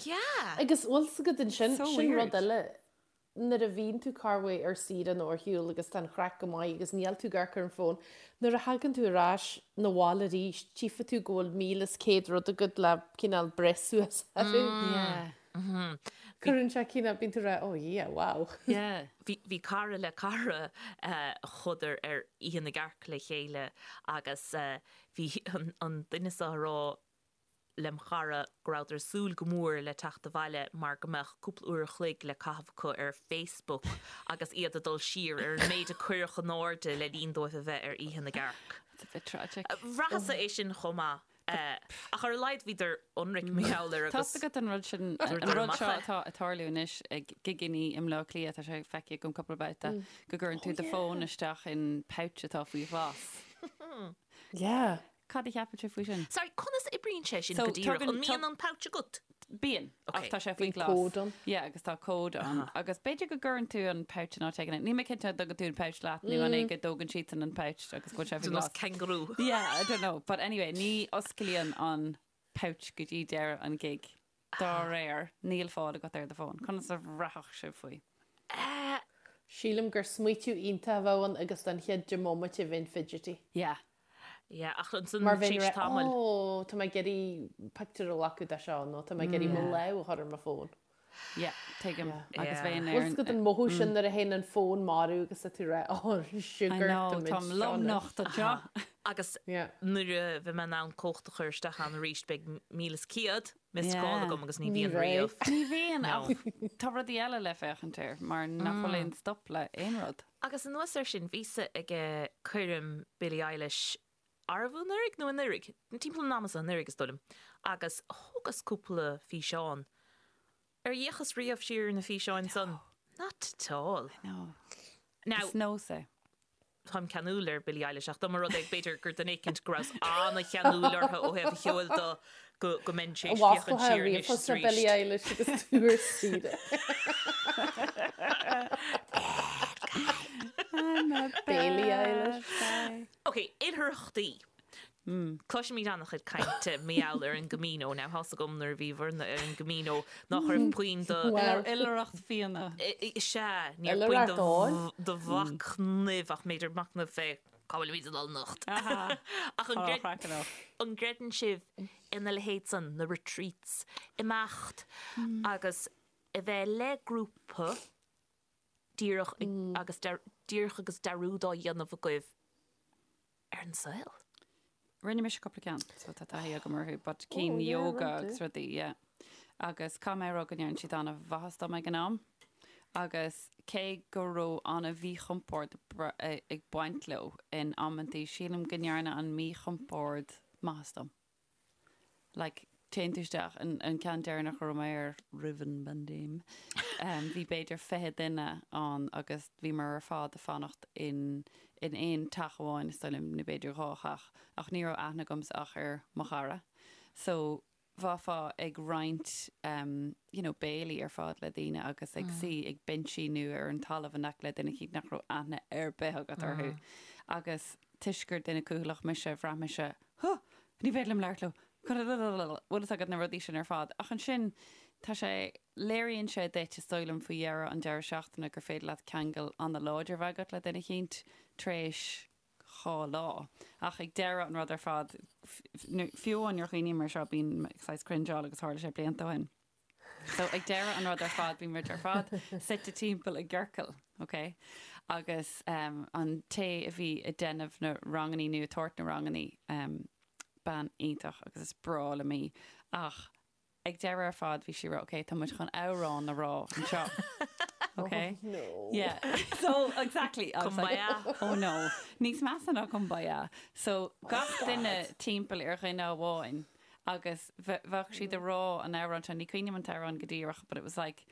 Yeah. Agus bhfuil 's agat ansin, So sin rud weird. eile, nuair a bhíonn tú corruair ar saoire nó ar shiúl agus tá an chraic go maith agus níl tú ag amharc ar an bhfón, nuair a thagann tú ar ais 'na bhaile arís, tchífidh tú go bhfuil 1,100 rud agat le cineál breith suas orthu. Yeah. Cuireann sé cineál, bíonn tú ag rá, oh yeah, wow. Yeah. Bhí, bhí cara le cara a chuadar ar Oíche na gCearc le chéile agus bhí an, an duine seo a rá lem chara go rabhadar ag súil go mór le teacht abhaile mar go mbeadh cúpla uair a chloig le caitheamh acu ar Facebook agus iad ag dul siar ar an méid a cuireadh in airde le linn dóibh a bheith ar Oíche na gCearc. It's a bit tragic. Bhraitheas-sa é sin chomh maith. Ach ar a laghad bhíodar ionraic mar gheall air Tá agus 's agat an rud sin, an dúradar rud amach seo é. atá ag tarlú anois ag gigeannaí i mBleá Cliath, tá sé feicthe agam cúpla babhta, go gcuireann tú do fón isteach in pouch atá faoi ghlas. Yeah. Cad a cheapann sibh faoi sin? Sorry, conas a oibríonn sé sin So, go díreach? tugann- An mbíonn an pouch agat? Bíonn, ach Ok. tá sé faoi Bíonn ghlas. cód ann. Yeah, agus tá cód ann. Agus b'fhéidir go gcuireann tú an pouch in áit éigin. Níl mé cinnte an dtugann tú an pouch leat nó an é go dtógann siadsan an pouch agus go bhfuil sé faoi Ar nós ghlas. kangaroo. Yeah, I don't know. But anyway, ní osclaíonn an pouch go dtí deireadh an gig. Dá réir, níl fáil agat ar do fón. Conas a bhraithfeadh sibh faoi? Sílim gur smaoitiú iontach a bheadh ann agus don chéad 10 mbomaite bheinn fidgety. Yeah. Yeah, ach ansan Mar bheinn tar éis ag rá, tamaill. Ó, tá mé ag iarraidh pictiúr a ghlacadh de seo nó tá mé ag iarraidh mo lámh a chur ar mo fón. Yeah, tuigim. Agus Yeah. bheinn ar Bhfuil 's agat an mothú sin nuair a théann an fón marbh agus tá tú ag rá, Ó, I sugar, know, tá muid táim seo anois. lomnocht anseo. Agus Yeah. nuair a bheidh mé in ann cód a chur isteach ann arís beidh 1,100 missed Yeah. call agam agus ní Ní bhíonn bheidh. riamh. Ní bhíonn, No. ach tá rudaí eile le féachaint air mar nach bhfuil aon stop le aon rud. Agus anuas air sin, bhíos-sa ag coirm Billie Eilish, arbh anuraidh nó anuraidh? Timpeall an ama so, anuraidh is dóigh liom, agus thógas cúpla físeán. Ar fhéachas riamh siar ar na físeáin san? Not at all. No. Now, Is nós é. táim ceanúil ar Billie Eilish ach dá mba rud é b'fhéidir gur duine éicint go rabhas an-cheanúil orthu ó thaobh a cheoil de go go mbeinn tar éis féachaint Bhasclaithe siar anois ríomhphost is ar Billie arís. Eilish agus tú ar saoire. Bailey Eilish. Ok, oilithreachtaí. Cloisimid an-chuid cainte mar gheall ar an gCamino. Now, tá's agam nuair a bhí bhur-na ar an gCamino nach raibh puinn do... Well. Oilithreacht fíona. Sea, ní raibh puinn Oilithreacht óil. do mhachnamh ach b'fhéidir machnamh fé cá bhfuilimid ag dul anocht. Ach an Tá craiceann off. an gcreideann sibh ina leithéid san, na retreats, imeacht agus a bheith le grúpa? Díreach agus díreach agus dearúd á dhéanamh agaibh ar an saol. Rinne mise cúpla ceann, so tá taithí agam orthu, but cinn yoga agus rudaí, yeah. Agus caithfidh mé a rá go ndearna siad an-mhaitheas dom ag an am. Agus cé go raibh an-mhíchompord ag baint leo in amantaí, sílim go ndearna an míchompord maitheas dom. Like, téann tú isteach, an, an ceann deireanach a raibh mé air roimh an bpaindéim, um, bhí b'fhéidir 20 duine ann agus bhíomar ar fad ag fanacht in, in aon teach amháin, is dóigh liom, nó b'fhéidir dhá theach, ach ní raibh aithne agamsa ach ar mo chara. So, bheifeá ag roinnt, um, you know, béilí ar fad le daoine agus ag suí ag binsí nó ar an talamh in aice le duine eicínt nach raibh aithne ar bith agat orthu. Agus toisc gur duine cúthaileach mise, bhraith mise, Huh! Ní féidir liom labhairt leo. Bhfuil fhios agat na rudaí sin ar fad. Ach ansin, tá sé, léiríonn sé duit, is dóigh liom, faoi dheireadh an deireadh seachtaine gur féidir leat ceangal an-láidir a bheith agat le duine eicínt tar éis dhá lá. Ach ag deireadh an rud ar fad, fiú amháin nuair a chuimhním air seo, bím saghas cringeáil agus tharla sé blianta ó shin. So ag deireadh an rud ar fad bhí muid ar fad suite timpeall i gciorcal, ok? Agus um, an té a bhí ag déanamh na rangannaí nó ag tabhairt na rangannaí, um, bean iontach agus is breá liom í, ach ag deireadh ar fad bhí sí ag rá, ok, tá muid chun amhrán a rá anseo. Ok? Oh, no. Yeah. So, exactly. I was like, Kumbaya. oh no. Níos measa ná kumbaya. So, gach duine timpeall ar dhuine amháin agus bheadh siad ag rá an amhrán seo, ní cuimhin liom an t-amhrán go díreach but it was like,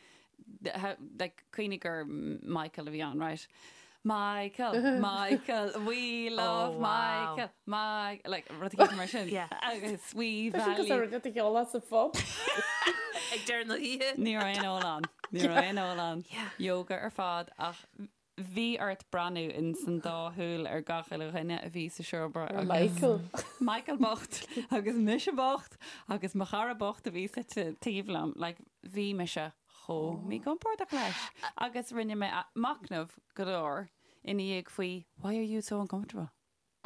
how, like cuimhnigh gur Michael a bhí ann, right? Michael, Michael, we love Oh, wow. Michael, Mike, like rud éigin mar sin. Yeah. Agus we Tá sin value. cosúil le rud a cheol sa phub. Ag deireadh na hoíche. Ní raibh aon ól ann. Ní raibh aon ól ann. Yeah. Yoga ar fad ach Bhí ort breathnú in san dá shúil ar gach uile dhuine a bhí sa seomra Ar agus Michael. Michael bocht agus mise bocht agus mo chara bocht a bhí suite taobh liom. Like, bhí mise chomh míchompordach leis. Agus rinne mé machnamh go leor ina dhiaidh faoi why are you so uncomfortable?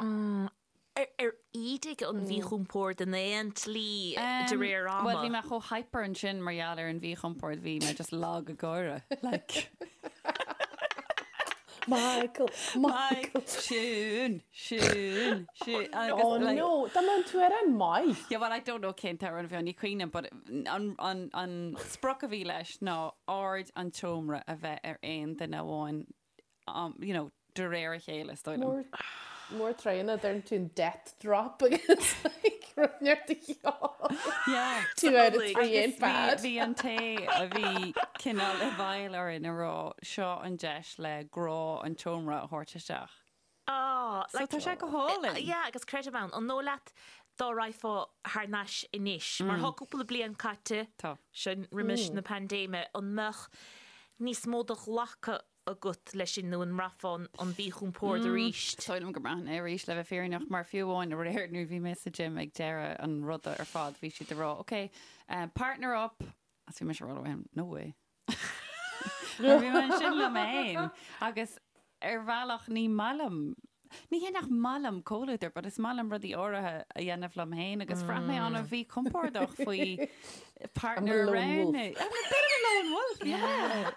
Ar ídigh an mhíchompord in aon tslí de réir ama? Bhuel, bhí mé chomh hyper ansin mar gheall ar an mhíchompord, bhí mé just lag ag gáire. Like. Michael, Michael. Siún, Siún, Siún. Agus, Oh like, no, dá mbeadh an t-amhrán maith. Yeah, well, I don't know cén t-amhrán a bhí ann, ní cuimhin liom, but an, an, an sprioc a bhí leis ná aird an tseomra a bheith ar aon duine amháin you know, de réir a chéile, is dóigh liom. Mór tréine, deireann tú an death drop agus like rud neart a cheol. Yeah. 2 out of 3 ain't bad. Bhí an té a bhí cineál i bhfeighil orainn ag rá seo an deis le grá an tseomra a thabhairt isteach. Ah, So tá sé go hálainn. Yeah, agus creidim ann. An dóigh leat dá raghfá thar n-ais anois, mar tá cúpla bliain caite, Tá. sin roimis na paindéime, an mbeadh níos mó de ghlacadh agat leis sin nó an mbraithfeá an mhíchompord arís? Is dóigh liom go mbraithfinn é arís, le bheith fírinneach, mar fiú amháin aréir nuair a bhí mé sa gym ag deireadh an ruda ar fad, bhí siad ag rá, ok, partner up, agus bhí mise ag rá leo, no way. Mar bhí mé ansin liom féin agus ar bhealach ní maith liom, ní hé nach maith liom comhluadar but is maith liom rudaí áirithe a dhéanamh liom féin agus bhraith mé an-mhíchompordach faoi partner I'm a lone wolf. roghnú. I'm a bit of a lone wolf, yeah.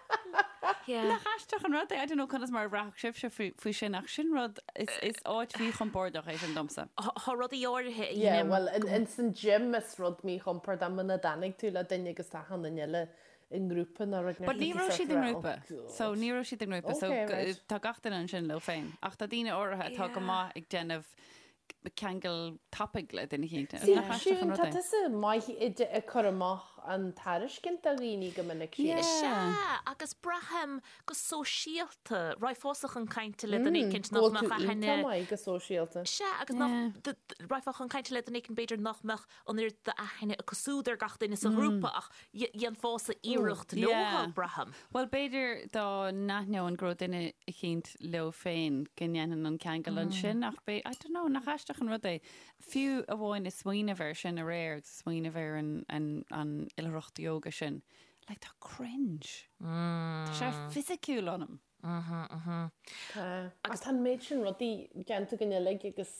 Yeah. Nach aisteach an rud é? I don't know conas mar a bhraithfeadh sibhse faoi, faoi sin ach sin rud, is, is áit mhíchompordach é sin domsa. Tá rudaí áirithe a Yeah, dhéanaim well, in, in san gym is rud míchompordach muna dtáinig tú le duine agus tá achan duine eile i ngrúpa nó rud But ní raibh siad i ngrúpa. So ní raibh siad i ngrúpa. So Okay, right. tá gach duine ansin leo féin. Ach tá daoine áirithe atá go maith ag déanamh ceangal tapaidh le duine eicínt. See, Nach aisteach an Siún, rud tá é? tusa maith ag cur amach an tairiscint do dhaoine go minic, Yeah. sílim. Sea, agus braithim go sóisialta, raghfása chun cainte le duine éicint Go nach bhfuil mbeadh tú aithne iontach maith go sóisialta. Sea, agus nach, raghfá chun cainte le duine éicint b'fhéidir nach mbeadh an oiread d'aithne acu siúd ar gach duine sa ghrúpa ach dhéanfása iarracht leo, braithim. Bhuel, b'fhéidir dá n-aithneoinn go raibh duine eicínt leo féin go ndéanfainn an ceangal ansin ach b'é, I don't know, nach aisteach an rud é? Fiú amháin ag smaoineamh air sin aréir agus ag smaoineamh ar an, an, an oilithreacht ióga sin, like tá cringe. Tá sé fisiciúil ionam. Tá. Agus tá an méid sin rudaí déanta againn uilig agus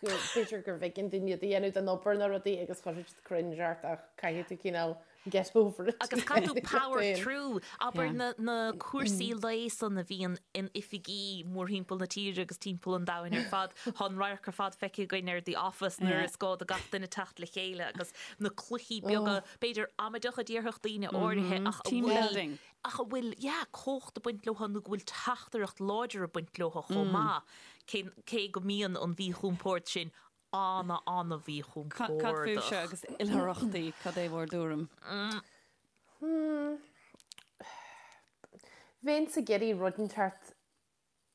go b'fhéidir gurbh éigean dúinn iad a dhéanamh don obair nó rudaí agus chuirfeadh siad cringe ort ach caithfidh tú cineál Get over it. Agus caithfidh tú power through. Abair na na cúrsaí lae san a bhíonn in oifigí mórthimpeall na tíre agus timpeall an domhain ar fad. Tá an radharc ar fad feicthe againn ar The Office nuair is gá do gach duine teacht le chéile agus na cluichí beaga, b'fhéidir amaideach a déarfadh daoine áirithe ach a Team bhfuil building. ach a bhfuil, yeah, cumhacht ag baint leo nó go bhfuil teachtaireacht láidir ag baint leo chomh maith, cé cé go mbíonn an mhíchompord sin ana, ana Cad fúibhse mhíchompordach. agus oilithreachtaí, cad é bhur dtuairim? Bheinnse ag iarraidh rud inteacht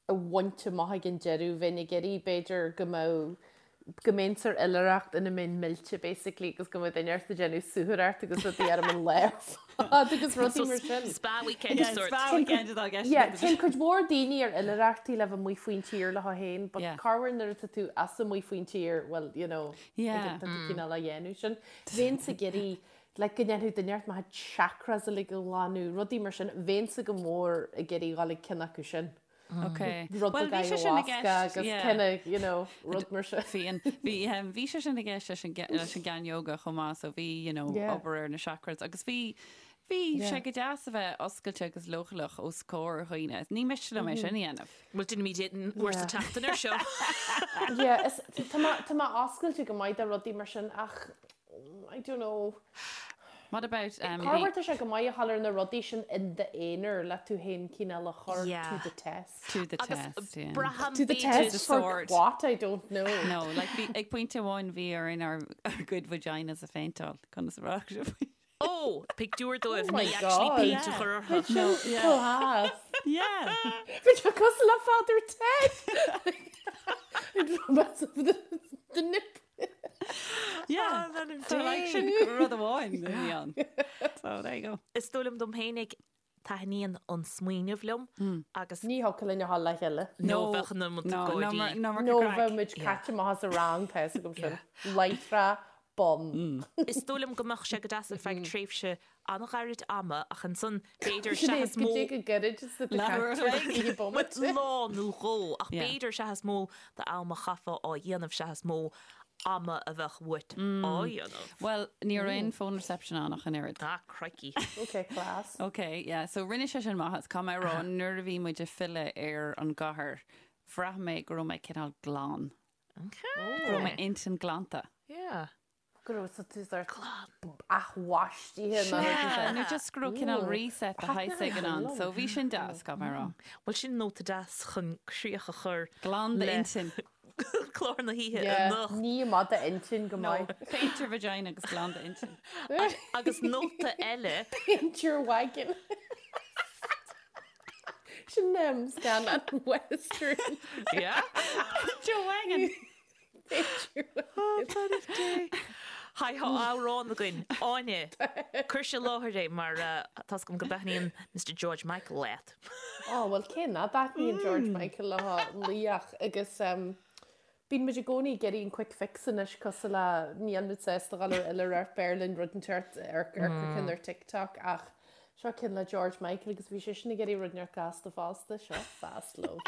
a bhaint amach ag an deireadh, bheinn ag iarraidh b'fhéidir go mbeadh, go mbeinnse ar oilithreacht ina mbeinn millte basically agus go mbeadh duine ort ag déanamh suathaireacht agus rudaí orm an lá ar fad agus rudaí mar sin. Spa weekend Yeah, sort. spa weekend atá i gceist Yeah, agat. téann cuid mhór daoine ar oilithreachtaí le bheith amuigh faoin tír leo féin, but Yeah. corruair nuair atá tú as amuigh faoin tír, well, you know, Yeah. ag- tá tú cineál á dhéanamh sin. Bheinnse ag iarraidh, like, go ndéanfadh duine ort mo chuid chakras uilig a ghlanadh, rudaí mar sin, bheinnse go mór ag iarraidh dhul ag ceann acu sin. Ok. Rud Well, beag bhí sé sin i ayahuasca gceist, agus yeah. kind of, you know, rud mar sin. Bhí an, bhí, um, bhí sé sin i gceist leis an, ge- leis an gceann yoga chomh maith, so bhí, you know, Yeah. obair ar na chakras agus bhí, bhí Yeah. sé go deas a bheith oscailte agus leochaileach os comhair dhaoine. Ní miste liom é sin a dhéanamh. Bhuel, déanfaimid é uair sa Yeah. tseachtain ar seo. Yeah, is, tá mé, tá mé oscailte go maith do rudaí mar sin ach, I don't know. What about um, Corruair tá sé go maith a dhul ar na rudaí sin in d'aonar le tú féin cineál a chur Yeah. to the test. to the Agus test, yeah. braithim To the b'fhéidir- test The for sword. what? I don't know. No, like bhí ag pointe amháin bhí orainn ár ár gcuid vaginas a phéinteáil conas a bhraith sibh. Ó, pictiúr dóibh Oh my ní actually God. péint a chur orthu. No, yeah. Class. Yeah. Bhí sé cosúil le Father Ted. Romance of the, the nip. Yeah. So like sin rud amháin a bhí ann. So there you go. Is dóigh liom dom fhéinig taitníonn an smaoineamh liom agus Ní thiocfadh linn a dhul le chéile. nó bheadh na No, no, gáirí. no, Nó bheadh muid caite amach as an rang tá fhios agam sin. Láithreach bonn. Is dóigh liom go mbeadh sé go deas ar feadh tréimhse an-ghairid ama ach ansan b'fhéidir Sin é, seachas go mó dtí go gairid is a Leathuair a chloig. bomaite. lá nó dhó ach Yeah. b'fhéidir seachas mó d'am a chaithfeá á dhéanamh seachas mó ama a bheadh uait á dhéanamh. Well, ní raibh aon phone reception ann ach an oiread. Ah, crikey. Ok, class. Ok, yeah, so rinne sé sin maitheas. Caithfidh mé a rá, nuair a bhí muid ag filleadh ar an gcathair, bhraith mé go raibh mé cineál glan. Okay. Go raibh m'intinn glanta. Yeah. Go raibh sa tú sort athbhaistithe nó rud Yeah, mar sin. nó just go raibh cineál reset de shaghas éigin ann. So bhí sin deas, caithfidh mé a rá. Bhuel, sin nóta deas chun críoch a chur Glan le d'intinn. clár na hoíche Yeah, anocht. ní maith d'intinn go No, maith. paint your vagina agus glan d'intinn. Agus nóta eile, Paint your wagon. Sin um, scannán western. yeah? Paint your wagon. Paint your wagon. Haigh, tá amhrán againn. Áine, cuir i láthair é mar uh, tá's agam go dtaitníonn Mr George Michael leat. Oh, well cé nach dtaitníonn George Michael le laoch agus um, bíonn muid i gcónaí ag iarraidh an quick fix anois cosúil le níl muid sásta dhul ar oilithreacht b'fhearr linn rud inteacht ar ar ceann ar TikTok ach seo ceann le George Michael agus bhí sé sin ag iarraidh rud inteacht gasta fosta seo Fast Love.